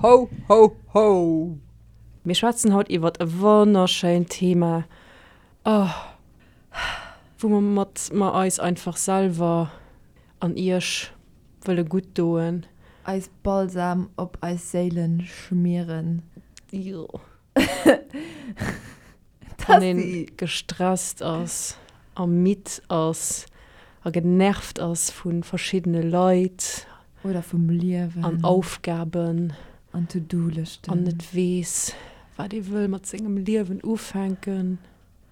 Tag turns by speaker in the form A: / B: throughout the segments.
A: Ho, ho, ho! Mir schwätzen haut iwwert e wonnerschéint Thema, oh, wou mer mat mer eis einfach selwer an iech wëlle gutt doen.
B: Eis Balsam op eis Séilen schmieren.
A: Jo. Wann een gestresst ass a midd ass a genervt ass vu verschiddene Leit.
B: Oder vum Liewen.
A: An Aufgaben.
B: An To-Do-Lëschten.
A: An net weess, wat ee wëll mat sengem Liewen ufänken.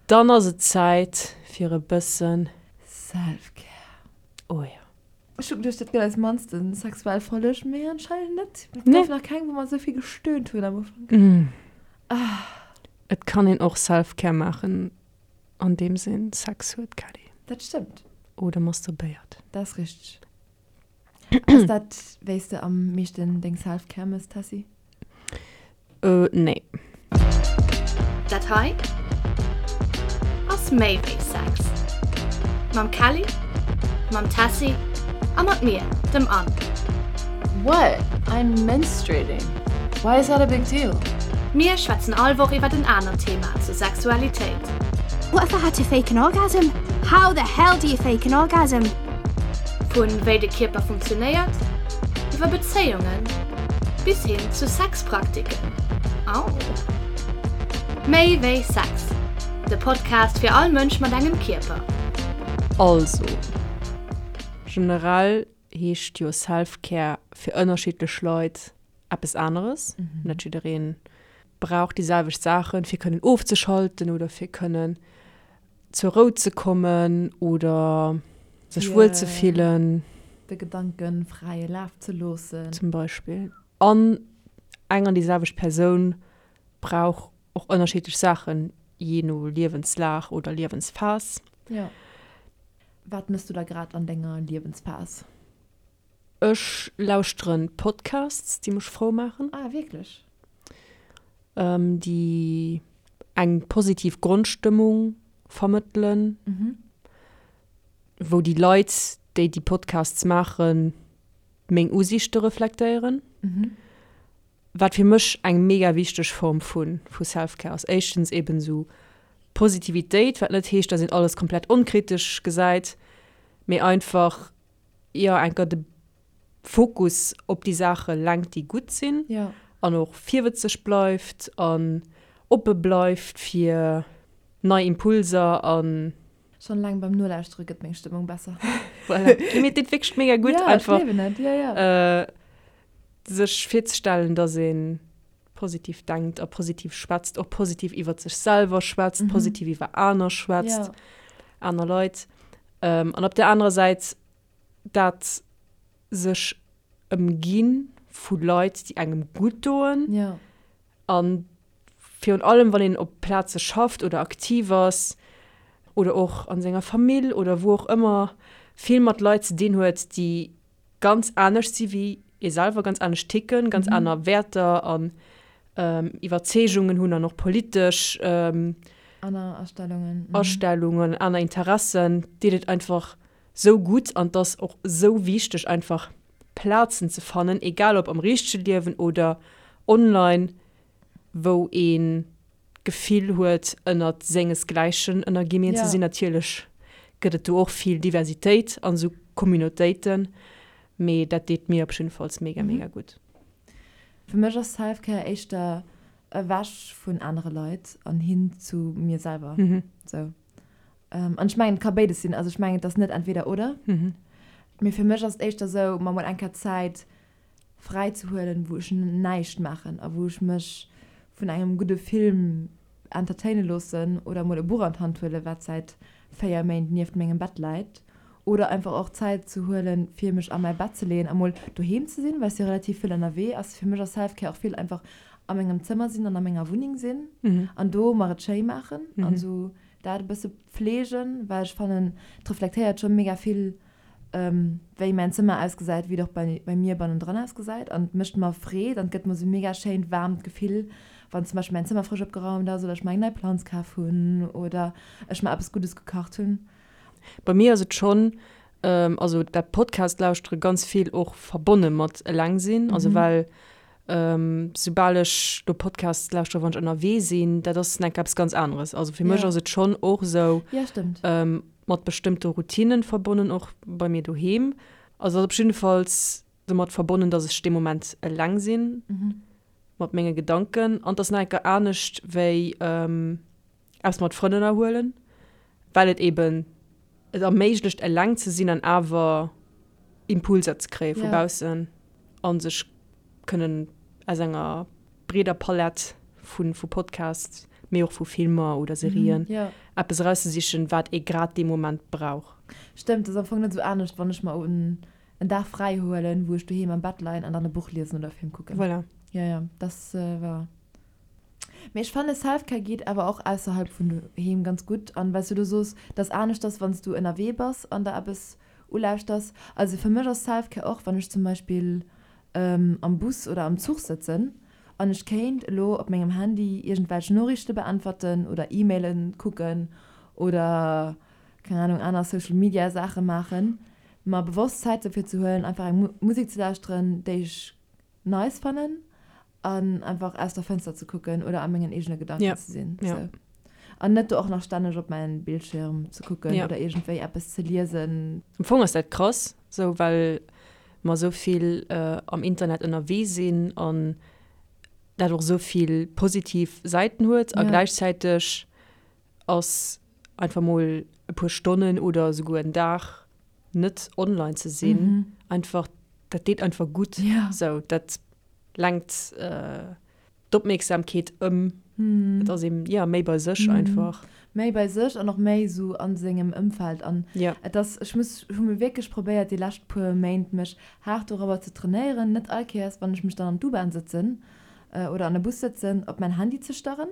A: Dann ass et Zäit fir e bëssen.
B: Self-Care.
A: Oh jo.
B: Ech hu geduecht, dat gëtt eis mannste sexuell Folleg, mee anscheinend net. Et gouf nach keng, wou mer esou vill gestöhnt hunn am Ufank.
A: Et kann een och Self-Care maachen, andeems een Sex huet, Kelly.
B: Dat stëmmt.
A: Oder masturbéiert.
B: Dat ass richteg. Ass dat, wéi s de am meeschten deng Self-Care mëss, Tessy?
A: Nee.
C: Dat hei ass méi wéi Sex. Mam Kelly, mam Tessy a mat mir, dem Anne.
D: What? I'm menstruating. Why is that a big deal?
C: Mir schwätzen all Woch iwwert en anert Thema zur Sexualitéit.
E: What if I had to fake an orgasm? How the hell do you fake an orgasm?
C: Vun wéi de Kierper funktionéiert, iwwer Bezéiungen bis hin zu Sexpraktiken. Au! Méi wéi Sex, de Podcast fir all Mënsch mat engem Kierper.
A: Also, generell heescht jo Self-Care fir ënnerschiddlech Leit eppes aneres. Net jidderee brauch déi selwecht Saachen, fir kënnen ofzeschalten oder fir kënnen zur Rou ze kommen oder sech wuel ze fillen.
B: De Gedanken fräie Laf ze loossen.
A: Zum Beispill. An eng an déi selwecht Persoun brauch och ënnerschiddlech Saachen, jee no Liewenslag oder Liewensphas.
B: Jo. Wat mëss du da grad an denger Liewensphas?
A: Ech lauschteren Podcasts, déi mech frou maachen.
B: Ah, wierklech?
A: Déi eng positiv Grondstëmmung vermëttelen. Wou déi Leit, déi déi Podcasts maachen, meng Usiichte reflektéieren. Wat fir mech eng mega wichteg Form vu vu Self-Care ass. Éischtens eben esou Positivitéit, wat net heescht, dass een alles komplett onkritesch gesäit, mee einfach jo enker de Fokus op déi Saache lenkt, déi gutt sinn an och virwëtzeg bleift an oppe bleift fir nei Impulser an.
B: Schonn eleng beim Nolauschtere gëtt meng Stëmmung besser.
A: Voilà. Mir deet wierklech mega gutt, einfach
B: Ja, ech gleewen et, ja, ja.
A: sech virzestellen, dass ee positiv denkt a positiv schwätzt, och positiv iwwer sech selwer schwätzt, positiv iwwer aner schwätzt, aner Leit. An op der anerer Säit dat sech ëmgi vu Leit, déi engem gutt doen.
B: Ja.
A: A virun allem, wann een op Plaze schafft oder aktiv ass oder och a senger Famill oder wou och ëmmer, vill mat Leit ze dinn huet, déi ganz anescht si wéi ee selwer, ganz anescht ticken, ganz aner Wäerter an Iwwerzeegungen hunn an och politesch
B: Aner Astellungen.
A: Astellungen, aner Interessen, deet et einfach sou gutt an 't ass och sou wichteg einfach Plazen ze fannen, egal ob am richtege Liewen oder online, wou een d'Gefill huet ënnert sengesgläichen ënnerginn ze sinn. Natierlech gëtt et do och vill Diversitéit an esou Communautéiten, mee dat deet mir op jiddefalls mega mega gutt.
B: Fir mech ass Self-Care éischter ewech vun anere Leit an hin zu mir selwer. Sou. An ech mengen, et ka béides sinn. Also ech mengen, et ass net entweder oder. Mee fir mech ass et éischter sou, mer mol eng Kéier Zäit fräi ze huelen, wou ech näischt maachen a wou ech mech vun engem gudde Film entertaine loossen oder mol e Buch an d'Hand huelen, wat säit 4 Méint nieft mengem Bett läit. Oder einfach och Zäit ze huelen, fir mech a mäi Bett ze leeën a mol doheem ze sinn, well ech si relativ vill ënnerwee. Ass fir mech ass Self-Care och vill einfach a mengem Zëmmer sinn an a menger Wunneng sinn an do mer et schéi maachen an esou dat e bësse pfleegen, well ech fannen, et reflektéiert scho mega vill, wéi mäin Zëmmer ausgesäit, wéi et och bei bei mir bannendran ausgesäit an et mécht mer Freed an et gëtt mer esou e mega schéint waarmt Gefill, wann zum Beispill mäin Zëmmer frësch opgeraumt ass oder ech mer eng nei Planz kaf hunn oder ech mer eppes Guddes gekacht hunn.
A: Bei mir ass et schonn, also dat Podcast lauschtere ganz vill och verbonne mat eleng sinn, also well. Soubal ech do Podcasts lauschtere wann ech ënnerwee sinn, dat ass enk eppes ganz aneres. Also fir mech ass et schonn och esou mat bestëmmte Routinnen verbonnen, och bei mir doheem. Also ass op jiddefalls domat verbonnen, datt ech dee Moment eleng sinn mat menge Gedanken. An et ass nach enker anescht wéi eppes mat Frënn ënnerhuelen, well et eben et erméiglecht eleng ze sinn an awer Impulser ze kréie vu baussen a sech kënnen aus enger breeder Palett vu vu Podcasts, mee och vu Filmer oder Serien eppes erauszesichen, wat ee grad dee Moment brauch.
B: Stëmmt, ass am Fong net esou anescht, wann ech mer en Dag fräi huelen, wou ech doheem am Bett leien an dann e Buch liesen oder e Film kucken.
A: Voilà.
B: Jo, jo, dat war. Mee ech fanne Selfcare geet awer och ausserhalb vun doheem ganz gutt. An well s du elo soos, dass anescht ass wann s du ënnerwee bass an der eppes ulauschters. Also fir mech ass Selfcare och wann ech zum Beispill am Bus oder am Zuch sëtzen an ech kéint elo op mengem Handy iergendwelch Noriichte beäntwerten oder E-Mailen kucken oder keng Ahnung aner Social Media Saache maachen, mer bewosst Zäit dofir ze huelen einfach eng Musek ze lauschteren déi ech nice fannen an einfach aus der Fënster ze kucken oder a mengen eegene Gedanken
A: Ja.
B: ze sinn.
A: Ja.
B: Sou. An net do och nach stänneg op mäin Bildschirm ze kucken
A: Ja.
B: oder iergendwéi eppes ze liesen.
A: Am Fong ass dat krass, sou well mer sou vill am Internet ënnerwee sinn an dat och sou vill positiv Säiten huet a
B: Ja.
A: gläichzäiteg ass einfach mol e puer Stonnen oder esouguer en Dag net online ze sinn einfach, dat deet einfach gutt.
B: Ja.
A: Sou dat lenkt d'Opmierksamkeet ëm. Et ass een, jo, méi bei sech einfach.
B: Méi bei sech an och méi esou a sengem Ëmfeld. An
A: Ja.
B: et ass, ech muss, hu mir wierklech probéiert déi lescht puer Méint mech haart dorobber ze trainéieren, net all Kéiers wann ech mech dann an d'U-Bahn sëtzen oder an e Bus sëtzen, op mäin Handy ze starren.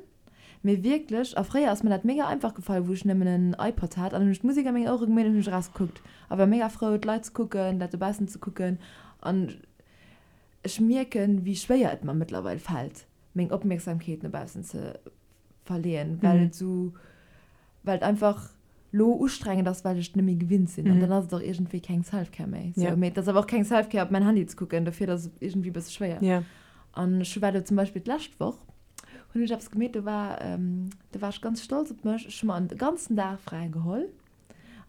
B: Mee wierklech, a fréier ass mir dat mega einfach gefall, wou ech nëmmen en iPod hat an hunn ech d'Musek a meng Ouere gemeet an hunn ech erausgekuckt a war mega frou d'Leit ze kucken, dat dobaussen ze kucken. An ech mierken, wéi schwéier et mer mëttlerweil fält, meng Opmierksamkeet no baussen ze verleeën, well et esou, well et einfach lo ustrengend ass, well ech et net méi gewinnt sinn. An dann ass et och iergendwéi keng Self-Care méi. Sou, mee et ass awer och keng Self-Care, op mäin Handy ze kucken, dofir ass et iergendwéi e bësse schwéier. An ech war do zum Beispill d'lescht Woch, hunn ech eppes gemeet, do war, do war ech ganz stolz op mech, ech hu mer en ganzen Dag fräi geholl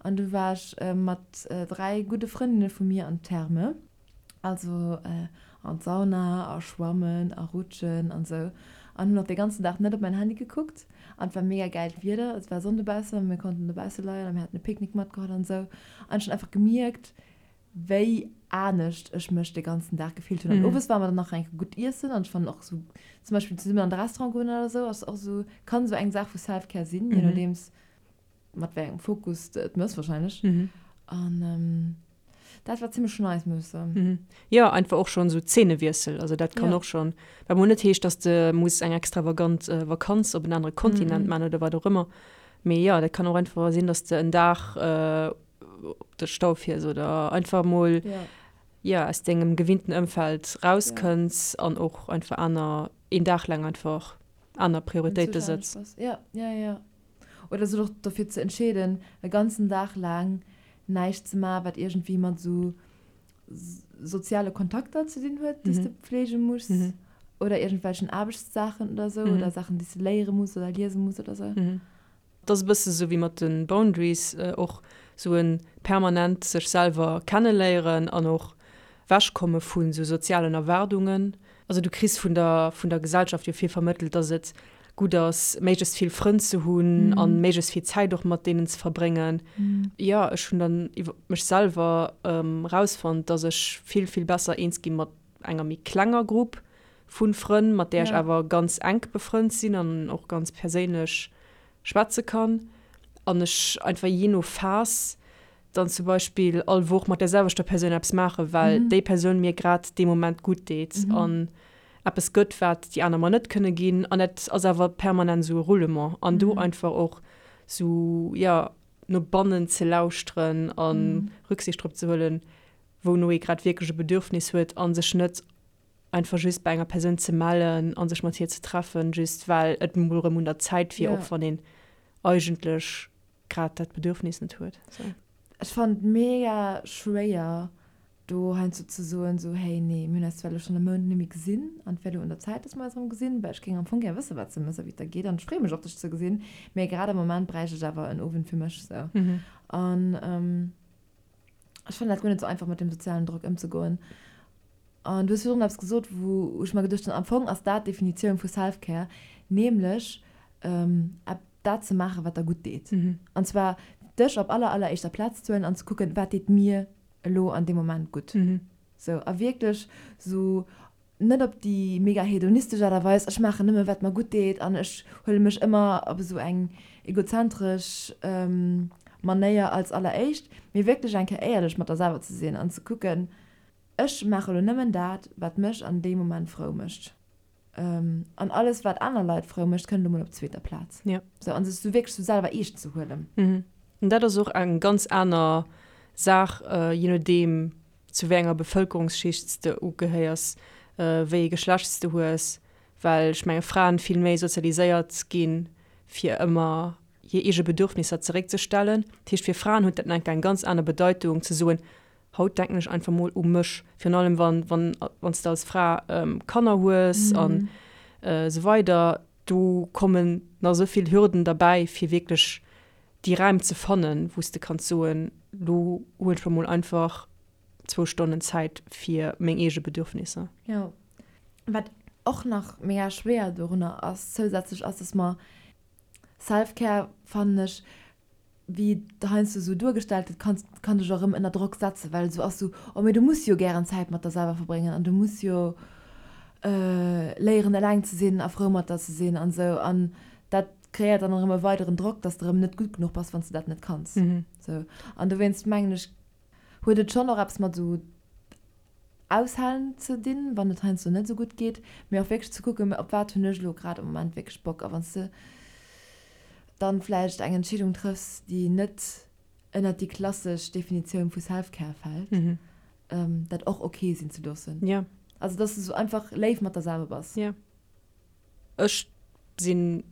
B: an du war ech mat 3 gudde Frëndinne vu mir an d'Therme, also an d'Sauna a schwammen a rutschen an sou an hunn och de ganzen Dag net op mäin Handy gekuckt an et war mega gäilt Wieder, et war Sonn dobaussen an mir konnten dobausse leien a mir haten e Picknick matgeholl an sou an ech hunn einfach gemierkt, wéi anescht ech mech de ganzen Dag gefillt hunn. An owes ware mer dann nach eng Kéier gutt iessen an ech fannen och sou zum Beispill zesummen an de Restaurant goen oder sou ass och sou, kann sou eng Saach vu Self-Care sinn, je nodeems mat wéi engem Fokus de et mëss wahrscheinlech. An dat war zimmlech nice, muss ech soen.
A: Jo, einfach och schonn sou Zeenewiessel, also dat kann
B: Ja.
A: och schonn, wat mol net heescht, dass de muss eng extravagant Vakanz op en anere Kontinent man oder wat och ëmmer, mee jo, dat kann och einfach sinn, dass de en Dag op de Stau fiers oder einfach mol
B: Ja.
A: ja, aus dengem gewinnten Ëmfeld rauskënns an och einfach aner, een Dag laang einfach aner Prioritéite sëtz.
B: Ja, ja, ja. Oder sech och dofir ze entscheeden, e ganzen Dag laang näischt ze maachen, wat iergendwéi mat esou soziale Kontakter ze dinn huet, déi s de pflege muss, oder iergendwelchen Aarbechtssaachen oder esou, oder Saachen, déi s de léiere muss oder liese muss oder esou.
A: Et ass e bësse sou wéi mat de Boundaries, och sou e permanent sech selwer kenneléieren an och wechkomme vu sou sozialen Erwaardungen. Also du kriss vun der vun der Gesellschaft jo vill vermëttelt, dass et gutt ass, méiglechst vill Frënn ze hunn a méiglechst vill Zäit och mat deenen ze verbréngen. Jo, ech hunn dann iwwer mech selwer erausfonnt, dass ech vill, vill besser eens gi mat enger méi klenger Grupp vu Frënn, mat där ech awer ganz enk befrënnt sinn an och ganz perséinlech schwätze kann. An ech einfach jee no Phas dann zum Beispill all Woch mat där selwechter Persoun eppes maachen, well déi Persoun mir grad dee Moment gutt deet an eppes gëtt, wat déi aner mer net kënne ginn. An dat ass awer permanent esou e Roulement. An do einfach och esou, jo, no bannen ze lauschteren a Rücksicht drop ze huelen, wouno ee grad wierklech e Bedürfnis huet a sech net einfach just bei enger Persoun ze mellen a sech mat hir ze treffen, just well et mol erëm un der Zäit wier, och wann een eigentlech grad dat Bedürfnis net huet.
B: Ech fannen et mega schwéier. do heiansdo ze soen, sou, hey, nee, mir hunn eis zwar elo schonn e Mount net méi gesinn an et wär elo un der Zäit, dass mer eis erëm gesinn, well ech géing am Fong gär wëssen, wat s de méchs a wéi et der geet an ech freeë mech och, dech ze gesinn, mee grad am Moment bräicht ech awer en Owend fir mech, sou. An ech fannen dat guer net sou einfach, mat deem sozialen Drock ëmzegoen. An du hues virdrun eppes gesot, wou ech mer geduecht hunn, am Fong ass dat d'Definitioun vu Self-Care, nämlech dat ze maachen, wat der gutt deet. An zwar dech op aller, alleréischter Plaz ze huelen an ze kucken, wat deet mir elo an deem Moment gutt. Sou, a wierklech sou net op déi mega hedonistesch Aart a Weis, ech maachen nëmme wat mer gutt deet an ech huele mech ëmmer op esou eng egozentresch Manéier als alleréischt, mee wierklech eng Kéier éierlech mat der selwer ze sinn an ze kucken, Ech maache lo nëmmen dat, wat mech an deem Moment frou mécht. An alles, wat aner Leit frou mécht, kënnt elo mol op zweeter Plaz.
A: Ja.
B: Sou, an sech sou wierklech sou selwer eescht ze huelen.
A: Mhm. An dat ass och eng ganz aner Saach, je nodeem, zu wéi enger Bevëlkerungsschicht s de ugehéiers, wéi ee Geschlecht s de hues, well ech menge Fraen vill méi sozialiséiert ginn, fir ëmmer hir eege Bedürfnisser zeréckzestellen. Dat heescht, fir Fraen huet dat nach eng ganz aner Bedeitung, ze soen, Haut denken ech einfach mol u mech, virun allem wann wann wann s de als Fra Kanner hues an esou weider, do kommen nach esou vill Hürden derbäi fir wierklech déi Räim ze fannen, wou s de kanns soen, lo huelen ech mer mol einfach zwou Stonnen Zäit fir meng eege Bedürfnisser.
B: Jo. Wat och nach mega schwéier dorunner ass zousätzlech ass, dass mer Self-Care, fannen ech, wéi et heiansdo esou duergestallt gëtt, kann, kann dech och erëm ënner Drock setzen, well esou ass esou, oh mee du muss jo gären Zäit mat der selwer verbréngen an du muss jo léieren eleng ze sinn a frou mat der ze sinn an esou. An dat kreéiert dann erëm e weideren Drock, dass de erëm net gutt genuch bass, wann s de dat net kanns. Esou. An dowéinst mengen ech, huet et schonn och eppes mat esou Aushalen ze dinn, wann et heiansdo net esou gutt geet, mee och wierklech ze kucken, op wat hunn ech elo grad am Moment wierklech Bock. A wann s de dann vläicht eng Entscheedung trëffs, déi net ënnert déi klassesch Definitioun vu Self-Care fält, dat och ok sinn ze loossen. Also dass de sou einfach léif mat der selwer bass.
A: Jo. Ech sinn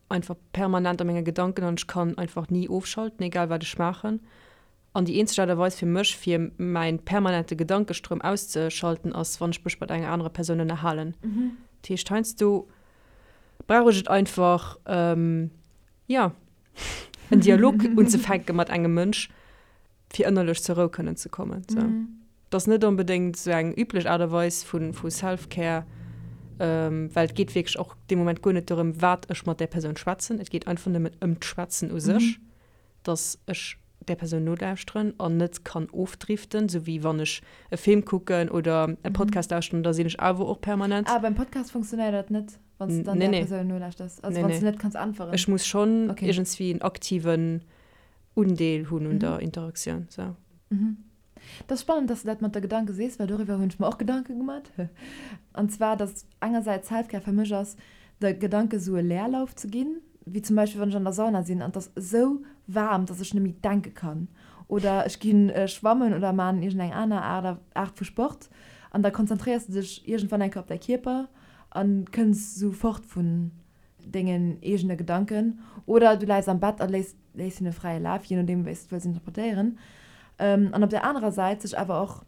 A: einfach permanent a menge Gedanken an ech kann einfach ni ofschalten, egal wat ech maachen. An déi eenzeg Aart a Weis fir mech, fir mäin permanente Gedankestroum auszeschalten, ass, wann ech mech mat enger anerer Persoun ënnerhalen. Dat heescht, heiansdo brauch ech et einfach, jo, en Dialog unzefänke mat engem Mënsch, fir ënnerlech zur Rou kënnen ze kommen. Sou. Dat ass net onbedéngt esou eng üblech Aart a Weis vu vu Self-Care, well et geet wierklech och dee Moment guer net dorëm, wat ech mat där Persoun schwätzen. Et geet einfach nëmmen ëm d'Schwätzen u sech. dass ech där Persoun nolauschteren an net kann ofdriften, sou wéi wann ech e Film kucken oder e Podcast lauschteren, da sinn ech awer och permanent.
B: Ah, beim Podcast funktionéiert dat net, wann s de dann
A: Nee,
B: där
A: nee.
B: Persoun nolauschters? Also
A: Nee,
B: wann s
A: nee.
B: de net kanns äntweren?
A: Ech muss schonn
B: Okay.
A: iergendswéi en aktiven Undeel hunn un der Interaktioun, sou.
B: Dat ass spannend, dass de dat mat der Gedanke sees, well doriwwer hunn ech mer och Gedanke gemat. An zwar, dass engersäits Selfcare fir mech ass, de Gedanke sou e Leerlauf ze ginn, wéi zum Beispill wann ech an der Sauna sinn an et ass esou waarm, dass ech net méi denke kann. Oder ech gi schwammen oder maan iergendeng aner Aart Aart vu Sport an da konzentréiers de dech iergendwann eng Kéier op däi Kierper a kënns sou fort vun dengen eegene Gedanken oder du läis am Bett a léiss léiss hinne fräie Laf, jee nodeem wéi s de wëlls interpretéieren. An op der anerer Säit sech awer och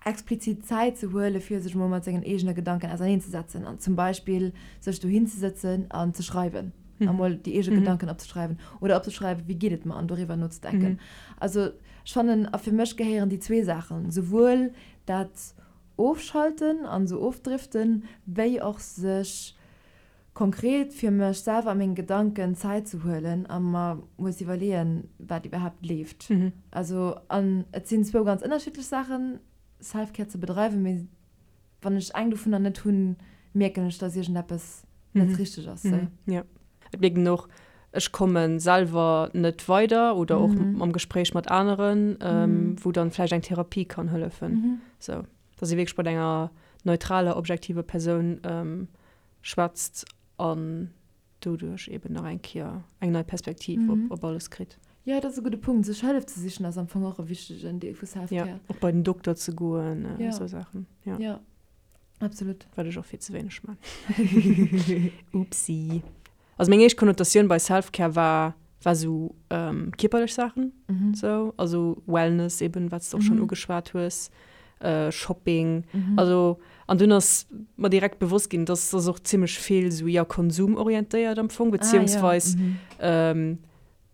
B: explizit Zäit ze huele fir sech emol mat sengen eegene Gedanken auserneenzesetzen an zum Beispill sech dohin ze sëtzen an ze schreiwen, emol déi eege Gedanken opzeschreiwen oder opzeschreiwen, wéi geet et mer an doriwwer nozedenken. Also ech fannen, a fir mech gehéieren déi zwee Saachen, souwuel dat Ofschalten an esou ofdriften, wéi och sech Konkret fir mech selwer a meng Gedanken Zäit ze huelen a mer mol ze iwwerleeën, wat iwwerhaapt leeft. Also, an et sinn zwou ganz ënnerschiddlech Saachen, Self-Care ze bedreiwen, mee wann ech eng dovunner net hunn, mierken ech, dass iergendeppes net richteg ass. Sou.
A: Jo, et mierkt een och, ech komme selwer net weider oder och am Gespréich mat aneren, wou dann vläicht eng Therapie kann hëllefen. Sou, dass ee wierklech mat enger neutraler, objektiver Persoun schwätzt an doduerch eben nach eng Kéier eng nei Perspektiv op, op alles kritt.
B: Jo, dat ass e gudde Punkt. Sech Hëllef ze sichen ass am Fong och e wichtegen Deel vu Self-Care.
A: Jo, och bei den Dokter ze goen, esou Saachen.
B: Jo. Jo, absolut.
A: Wat ech och vill ze wéineg man. Oopsie. Also meng éischt Konnotatioun bei Self-Care war. War sou kierperlech Saachen, sou, also Wellness eben, wat s de och schonn ugeschwat hues, Shopping, also an dunn ass mer direkt bewosst ginn, dass ass och zimmlech vill sou, jo, konsumorientéiert am Fong, beziehungsweis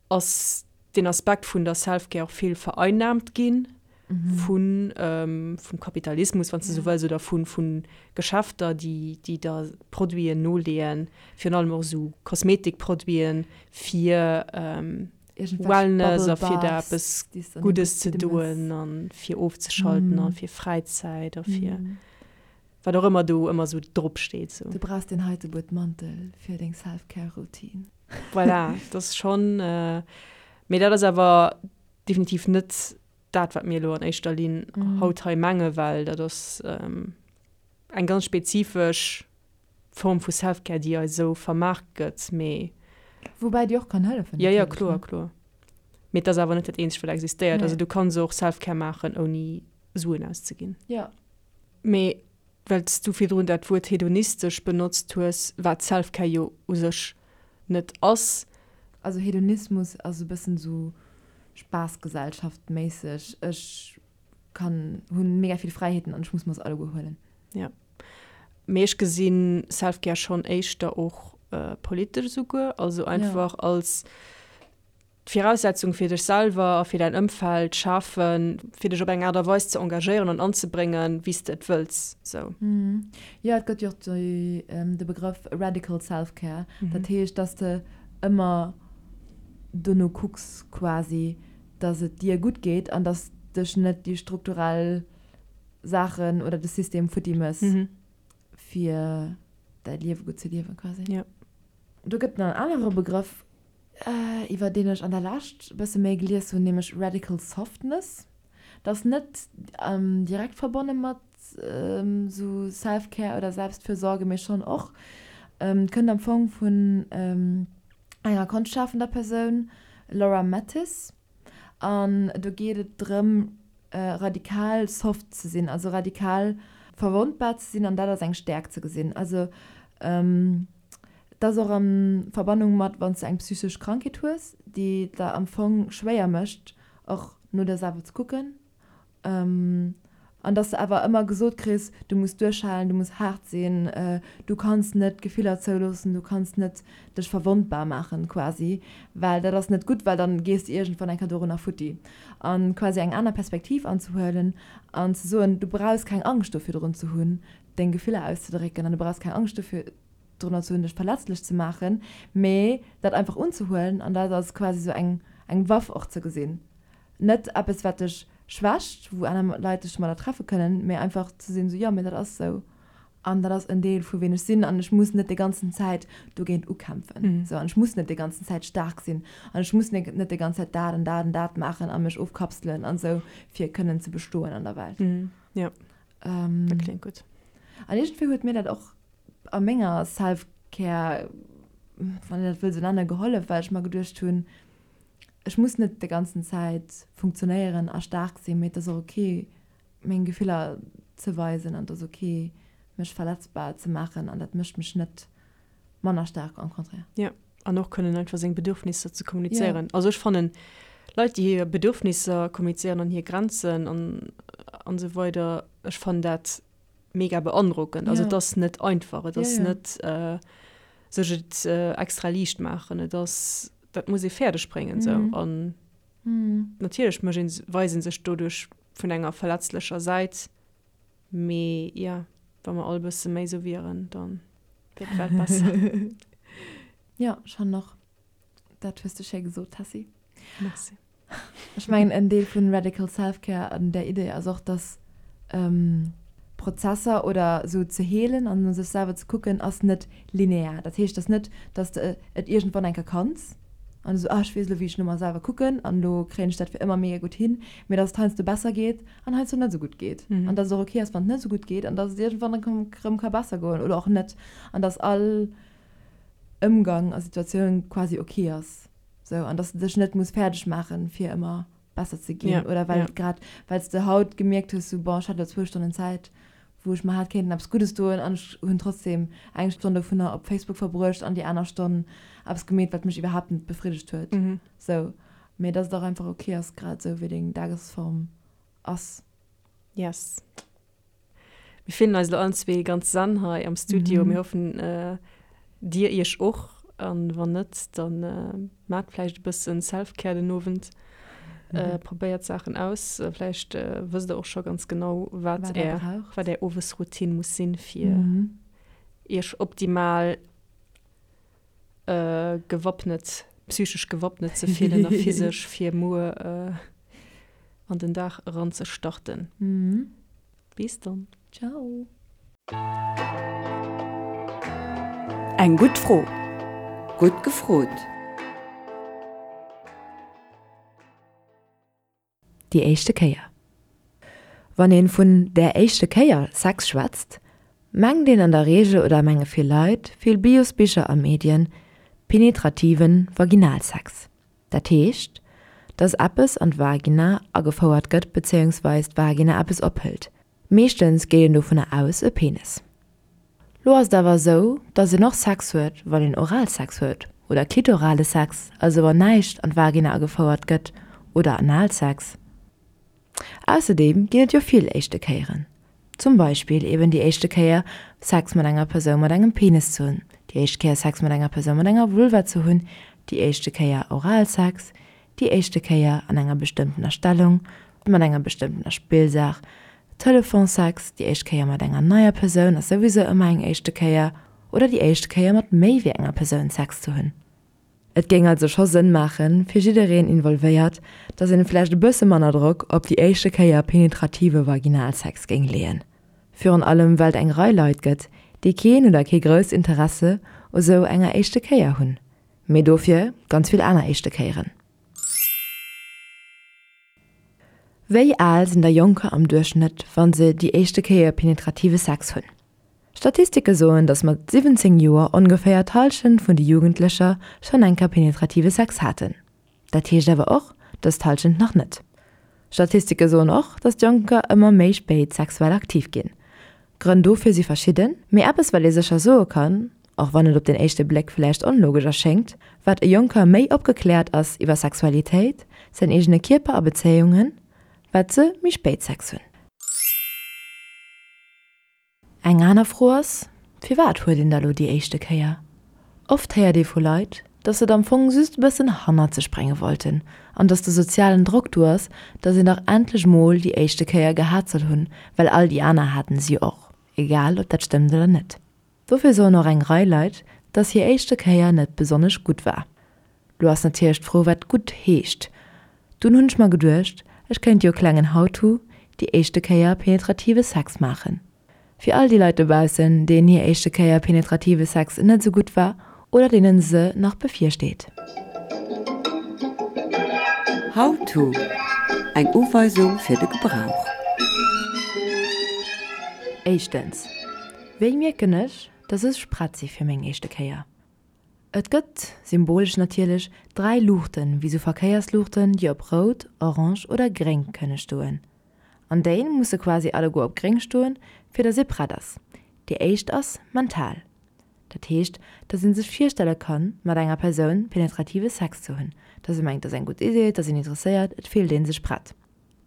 A: ass deen Aspekt vun der Self-Care och vill vereinnahmt ginn vun vum Kapitalismus, wann s de sou wëlls, oder vu vu Geschäfter, déi déi der Produiten noleeën, virun allem och esou Kosmetikproduiten, fir Wellness a fir der eppes Guddes ze doen a fir ofzeschalten a fir Fräizäit a fir wat och ëmmer do ëmmer esou drop steet.
B: Sou. Du brauchs deen heite Buet Mantel fir deng Self-Care-Routine.
A: Voilà, dat ass schonn, mee dat ass awer definitiv net dat, wat mir elo an éischter Linn haut hei mengen, well dat ass eng ganz spezifesch Form vu Self-Care, déi eis esou vermaart gëtt, mee.
B: Woubäi déi och kann hëllefen
A: natierlech, ne? Jo, jo, kloer, kloer. Mee et ass awer net dat eenzegt, wat existéiert. Also du kanns och Self-Care maachen, ouni Suen auszeginn.
B: Jo.
A: Mee well s du virdrun dat Wuert hedonistesch benotzt hues, wat Self-Care jo u sech net ass.
B: Also Hedonismus ass e bëssen esou Spaassgesellschaft-méisseg, ech kann, hunn mega vill Fräiheeten an ech muss mer se alleguer huelen.
A: Jo. Mee ech gesinn Self-Care schonn éischter och politesch esouguer, also einfach als d'Viraussetzung fir dech selwer a fir däin Ëmfeld schafen, fir dech op eng Aart a Weis ze engagéieren an anzebréngen, wéi s de et wëlls. Sou.
B: Jo, et gëtt jo och de Begrëff radical self-care. Dat heescht, dass de ëmmer dono kucks quasi, dass et dir gutt geet an dass dech net déi strukturell Saachen oder de System futti mëss, fir däi Liewe gutt ze liewen quasi. Do gëtt nach en anere Begrëff, iwwer deen ech an der Lescht e bësse méi gelies hunn, nämlech Radical Softness. Dat ass net direkt verbonne mat esou Self-Care oder Selbstfürsorge, mee schonn och. Kënnt am Fong vun enger konschtschafender Persoun, Laura Mattis. An do geet et drëm, radikal soft ze sinn, also radikal verwondbar ze sinn an dat als eng Stäerkt ze gesinn. Also et ass och a Verbannung mat, wann s de eng psychesch Krankheet hues, déi et der am Fong schwéier mécht, och no der selwer ze kucken. An dass de awer ëmmer gesot kriss, du muss duerchhalen, du muss haart sinn, du kanns net Gefiller zouloossen, du kanns net dech verwondbar maachen quasi, well dat ass net gutt, well dann gees de iergendwann eng Kéier dorunner futti. An quasi eng aner Perspektiv anzehuelen an ze soen, du brauchs keng Angscht do virdrun ze hunn, deng Gefiller auszedrécken an du brauchs keng Angscht dofir drunner ze hunn, dech verletzlech ze maachen, mee dat einfach unzehuelen an dat als quasi sou eng eng Waff och ze gesinn. Net eppes wat dech schwächt, wou aner Leit dech domadder treffe kënnen, mee einfach ze sinn sou, jo mee dat ass sou an dat ass en Deel vu ween ech sinn an ech muss net déi ganzen Zäit dogéint ukämpfen sou an ech muss net déi ganzen Zäit staark sinn an ech muss net déi ganz Zäit dat an dat an dat maachen a mech ofkapselen an sou fir kënnen ze bestoen an der Welt.
A: Jo, dat kléngt gutt.
B: An iergendwéi huet mir dat och a menger Self-Care, wann een dat wëll sou nennen, gehollef, well ech mer geduecht hunn, ech muss net déi ganzen Zäit funktionéieren a staark sinn, mee et ass och ok, meng Gefiller ze weisen an et ass ok, mech verletzbar ze maachen an dat mécht mech net manner staark, au contraire.
A: Jo, an och kënnen einfach seng Bedürfnisser ze kommunizéieren. Also ech fannen, Leit, déi hir Bedürfnisser kommunizéieren an hir Grenzen an an esou weider, ech fannen dat mega beandrockend. Also et ass net einfach, et ass net sech et extra liicht maachen, et ass, dat muss ee fäerdeg bréngen esou. An natierlech mécht een, weist ee sech doduerch vun enger verletzlecher Säit, mee jo, wa mer all e bësse méi esou wieren, da wier d'Welt besser.
B: Jo, schonn och. Dat hues de schéi gesot, Tessy.
A: Merci.
B: Ech mengen, en Deel vun Radical Self-Care an där Idee ass och, dass Prozesser oder esou ze heelen an no sech selwer ze kucken, ass net linear. Dat heescht, dass net, dass de et iergendwann eng Kéier kanns an esou, ah, ech weess elo, wéi ech no mer selwer kucken an elo kréien ech dat fir ëmmer mega gutt hin, mee dass et heiansdo besser geet an heiansdo net esou gutt geet an dass et och ok ass, wann et net esou gutt geet an dass et iergendwann erëm ka besser goen oder och net an dass all Ëmgang a Situatioun quasi ok ass. Sou, an dass de dech net muss fäerdeg maachen, fir ëmmer besser ze ginn. Ja, oder well ja. grad, well s de haut gemierkt hues, sou, bon, ech hat elo zwou Stonnen Zäit, wou ech mer hätt kéinten eppes Guddes doen an ech hunn trotzdem eng Stonn dovunner op Facebook verbruecht an déi aner Stonn eppes gemeet, wat mech iwwerhaapt net befriddegt huet. Sou. Mee dass et och einfach ok ass, grad esou wéi deng Dagesform ass.
A: Yes. Mir fillen eis elo allen zwee ganz zen hei am Studio. Mir hoffen, dir iech och. An wann net, dann maacht vläicht e bëssen Self-Care den Owend. Probéiert Saachen aus. Vläicht wësst der och scho ganz genau, wat är, wat är Owesroutine muss sinn, fir iech optimal gewappnet, psychesch gewappnet ze fillen a physesch, fir muer an den Dag eranzestarten. Bis dann.
B: Ciao.
F: Eng gutt Fro. Gutt gefrot.
B: Déi éischte Kéier. Wann een vun der éischte Kéier Sex schwätzt, mengt een an der Reegel oder menge vill Leit, vill Biosbicher a Medien, penetrativen Vaginalsex. Dat heescht, dass eppes an d'Vagina agefouert gëtt bezéiungsweis d'Vagina eppes ophëlt. Meeschtens geet een dovunner aus, e Penis. Lo ass et awer esou, dass een och Sex huet, wann een Oralsex huet oder klitorale Sex, also wann näischt an d'Vagina agefouert gëtt, oder Analsex. Ausserdeem ginn et jo vill éischte Kéieren. Zum Beispill eben déi éischte Kéier Sex mat enger Persoun mat engem Penis ze hunn, déi éischt Kéier Sex mat enger Persoun mat enger Vulva ze hunn, déi éischte Kéier Oralsex, déi éischte Kéier an enger bestëmmtener Stellung, mat enger bestëmmtener Spillsaach, Telefonsex, déi éischt Kéier mat enger neier Persoun ass souwisou ëmmer eng éischte Kéier, oder déi éischt Kéier mat méi wéi enger Persoun Sex ze hunn. Et géing also scho Sënn maachen, fir jiddereen involvéiert, dass een vläicht e bësse manner Drock op déi éischte Kéier penetrative Vaginalsex géing leeën. Virun allem well et eng Rei Leit gëtt, déi keen oder kee grousst Interesse u sou enger éischte Kéier hunn. Mee dofir ganz vill aner éischte Kéieren. Wéi al sinn da Jonker am Duerchschnëtt, wa se déi éischte Kéier penetrative Sex hunn? Statistike soen, datt mat 17 Joer ongeféier d'Hallschent vun de Jugendlecher schonn eng Kéier penetrative Sex haten. Dat heescht awer och, datt d'Hallschent nach net. Statistike soen och, datt d'Jonker ëmmer méi spéit sexuell aktiv ginn. Grënn dofir si verschidden, mee eppes wat ee sécher soe kann, och wann et op den éischte Bléck vläicht onlogesch erschéngt, Wat e Jonker méi opgekläert ass iwwer Sexualitéit, säin eegene Kierper a Bezéiungen, wat se méi spéit Sex hunn. Eng aner Fro ass, Firwat huet een da lo déi éischte Kéier? Oft héiert ee vu Leit, dass se et am Fong just e bëssen hannert sech brénge wollten an dass de sozialen Drock do ass, dass een dach endlech mol déi éischte Kéier gehat soll hunn, well all déi aner haten se jo och, egal ob dat stëmmt oder net. Dofir soen och eng Rei Leit, dass hir éischte Kéier net besonnesch gutt war. Lo ass natierlech d'Fro wat gutt heescht. Dunn hunn ech mer geduecht, ech kéint jo e klengen How-to, déi éischte Kéier penetrative Sex maachen. Fir all déi Leit dobaussen, deenen hir éischte Kéier penetrative Sex net esou gutt war oder deenen se nach bevirsteet.
F: How to, Eng Uweisung fir de Gebrauch.
B: Éischtens, Wéi mierken ech, dass ech prett si fir meng éischte Kéier? Et gëtt, symbolesch natierlech, 3 Luuchten, wéi sou Verkéiersluuchten, déi op rout, orange oder gréng kënne stoen. An déi musse quasi alleguer op gréng stoen, fir dass ee prett ass. Déi éischt ass mental. Dat heescht, dass ee sech virstelle kann, mat enger Persoun penetrative Sex ze hunn, dass ee mengt, et ass eng gutt Idee, et ass een interesséiert, et fillt ee sech prett.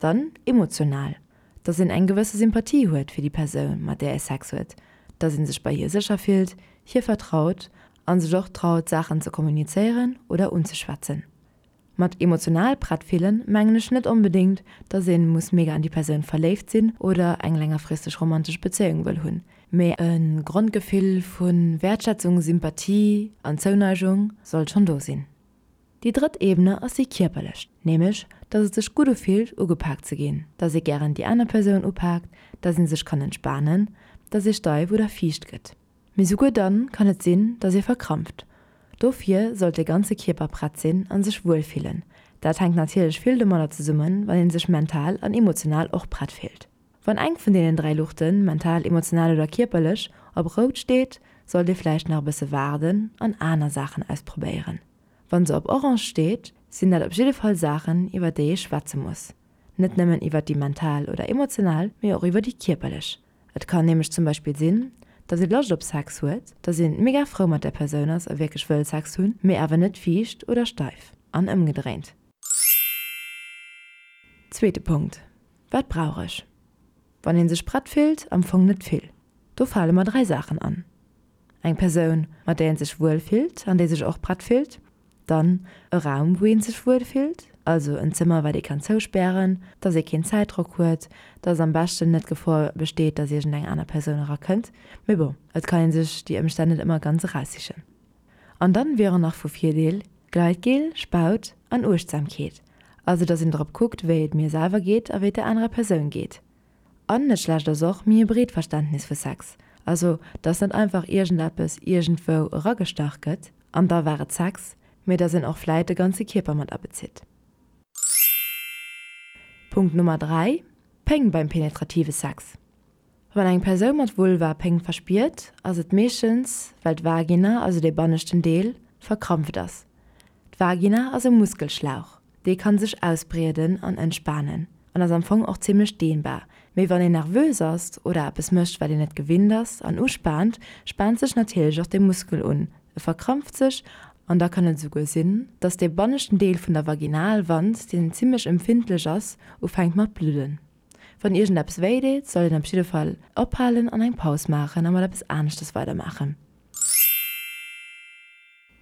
B: Dann emotional, dass een eng gewësse Sympathie huet fir déi Persoun, mat där ee Sex huet, dass ee sech bei hir sécher fillt, hir vertraut a sech och traut, Saachen ze kommunizéieren oder unzeschwätzen. Mat emotional prett fillen mengen ech net onbedéngt, dass een muss mega an déi Persoun verléift sinn oder eng längerfristeg romantesch Bezéiung wëll hunn, mee e Grondgefill vu Wäertschätzung, Sympathie an Zouneigung sollt schonn do sinn. Déi drëtt Ebene ass déi kierperlech, nämlech dass et sech gutt ufillt ugepaakt ze ginn, dass ee gären déi aner Persoun upaakt, dass ee sech kann entspanen, dass ee steif oder fiicht gëtt. Mee souguer dann kann et sinn, dass ee verkrampft. Dofir sollt de ganze Kierper prett sinn an sech wuel fillen. Dat hänkt natierlech vill domadder zesummen, wann een sech mental an emotional och prett fillt. Wann eng vun deenen 3 Luuchten, mental, emotional oder kierperlech, op rout steet, sollt ee vläicht nach e bësse waarden an aner Saachen ausprobéieren. Wann se op orange steet, sinn dat op jidde Fall Saachen, iwwer déi ee schwätze muss. Net nëmmen iwwer déi mental oder emotional, mee och iwwer déi kierperlech. Et kann nämlech zum Beispill sinn, dass ee Loscht op Sex huet, dass een mega frou mat der Persoun ass a wierklech wëll Sex hunn, mee awer net fiicht oder steif. An ëmgedréint. Zweete Punkt, Wat brauch ech? Wann ee sech prett fillt, am Fong net vill. Do fale mer 3 Saachen an. Eng Persoun, mat där een sech wuel fillt an déi sech och prett fillt. Dann e Raum, wou ee sech wuel fillt, also en Zëmmer, wat ee kann zouspären, dass ee keen Zäitdrock huet, dass am beschten net d'Gefor besteet, dass iergendeng aner Persoun erakënnt. Mee bon, et kann ee sech déi Ëmstänn net ëmmer ganz eraussichen. An dann wieren nach vu Virdeel, Gleitgel, Spaut an Uechtsamkeet, also dass een drop kuckt wéi et mir selwer geet a wéi et der anerer Persoun geet. An net schlecht ass och méi e breet Verständnis vu Sex, also dass net einfach iergendeppes iergendwou eragestach gëtt an da war et Sex, mee dass een och vläit de ganze Kierper mat abezitt. Punkt Nummer 3, Péng beim penetrative Sex. Wann eng Persoun mat Vulva Péng verspiert, ass et meeschtens, well d'Vagina, also dee banneschten Deel, verkrampft ass. D'Vagina ass e Muskelschlauch, dee kann sech ausbrieden an entspanen an ass am Fong och zimmlech dehnbar. Mee wann een nervös ass oder eppes mécht, wat een net gewinnt ass an uspaant, spaant sech natierlech och dee Muskel un, e verkrampft sech an da kann et esouguer sinn, dass dee banneschten Deel vun der Vaginalwand, deen zimmlech empfindlech ass, ufänkt mat bludden. Wann iergendeppes wéi deet, sollt een op jidde Fall ophalen an eng Paus maachen a mat eppes aneschtes weidermaachen.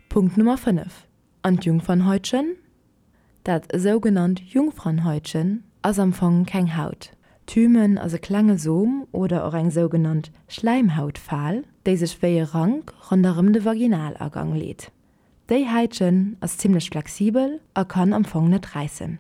B: Punkt Nummer 5, An d'Jungfernhäutchen? Dat sougenannt Jungfernhäutchen ass am Fong keng Haut. D'Hymen ass e klenge Som oder och eng sougenannt Schläimhautfal, déi sech wéi e Rank ronderëm de Vaginalagang leet. Déi Häitchen ass zimmlech flexibel a kann am Fong net räissen.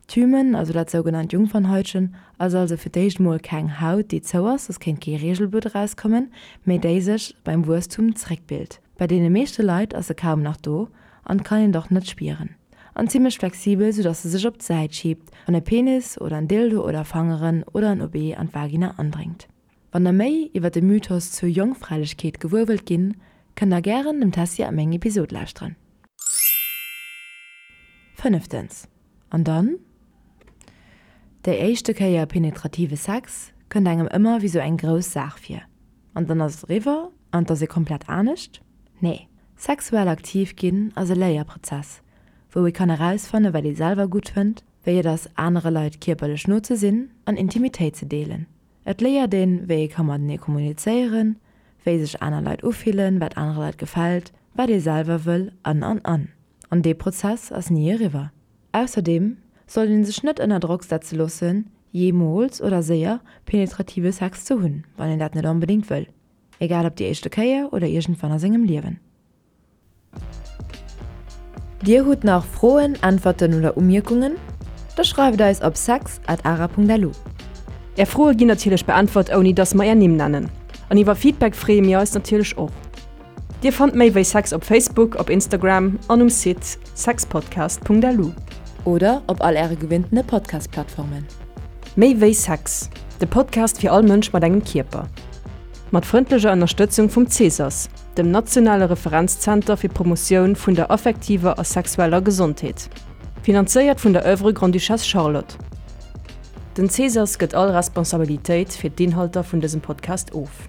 B: D'Hymen, also dat sougenannt Jungfernhäutchen, ass also fir d'éischt mol keng Haut, déi zou ass, soss kéint kee Reegelblutt erauskommen, mee déi sech beim Wuesstum zeréckbilt. Bei deene meeschte Leit ass se kaum nach do an kann een et och net spieren. An zimmlech flexibel, sou dass se sech op d'Säit schiebt, wann e Penis oder en Dildo oder Fangeren oder en OB an d'Vagina andréngt. Wann der méi iwwer de Mythos zur Jongfräilechkeet gewuer wëllt ginn, kënnt der gären dem Tessy a meng Episod lauschteren. Fënneftens, An dann? Déi éischte Kéier penetrative Sex kënnt engem ëmmer wéi sou eng grouss Saach vir. An dann ass et eriwwer an et ass ee komplett anescht? Nee, sexuell aktiv ginn ass e Léierprozess, wou ee kann erausfanne wat ee selwer gutt fënnt, wéi et ass anere Leit kierperlech no ze sinn an Intimitéit ze deelen. Et léiert een, wéi ee ka matenee kommunizéieren, wéi sech aner Leit ufillen, wat anere Leit gefält, wat ee selwer wëll an an an. An dee Prozess ass ni eriwwer. Ausserdeem sollt een sech net ënner Drock setze loossen, jeemools oder séier penetrative Sex ze hunn, wann een dat net onbedéngt wëll, egal ob déi éischte Kéier oder iergendwann a sengem Liewen. Dir hutt nach Froen, Äntwerten oder Umierkungen? Da schreift eis op sex at ara.lu.
A: Är Froe ginn natierlech beäntwert ouni dass mer är Nimm nennen. An iwwer Feedback freeë mir eis natierlech och. Dir fannt méi wéi Sex op Facebook, op Instagram an um Site sexpodcast.lu.
B: Oder op all äre gewinntene Podcast-Plattformen.
A: Méi wéi Sex, de Podcast fir all Mënsch mat engem Kierper. Mat frëndlecher Ënnerstëtzung vum Cesas, dem nationale Referenzzenter fir d'Promotioun vun der affektiver a sexueller Gesondheet. Finanzéiert vun der Oeuvre Grande-Duchesse Charlotte. Den Cesas gëtt all Responsabilitéit fir d'Inhalter vun dësem Podcast of.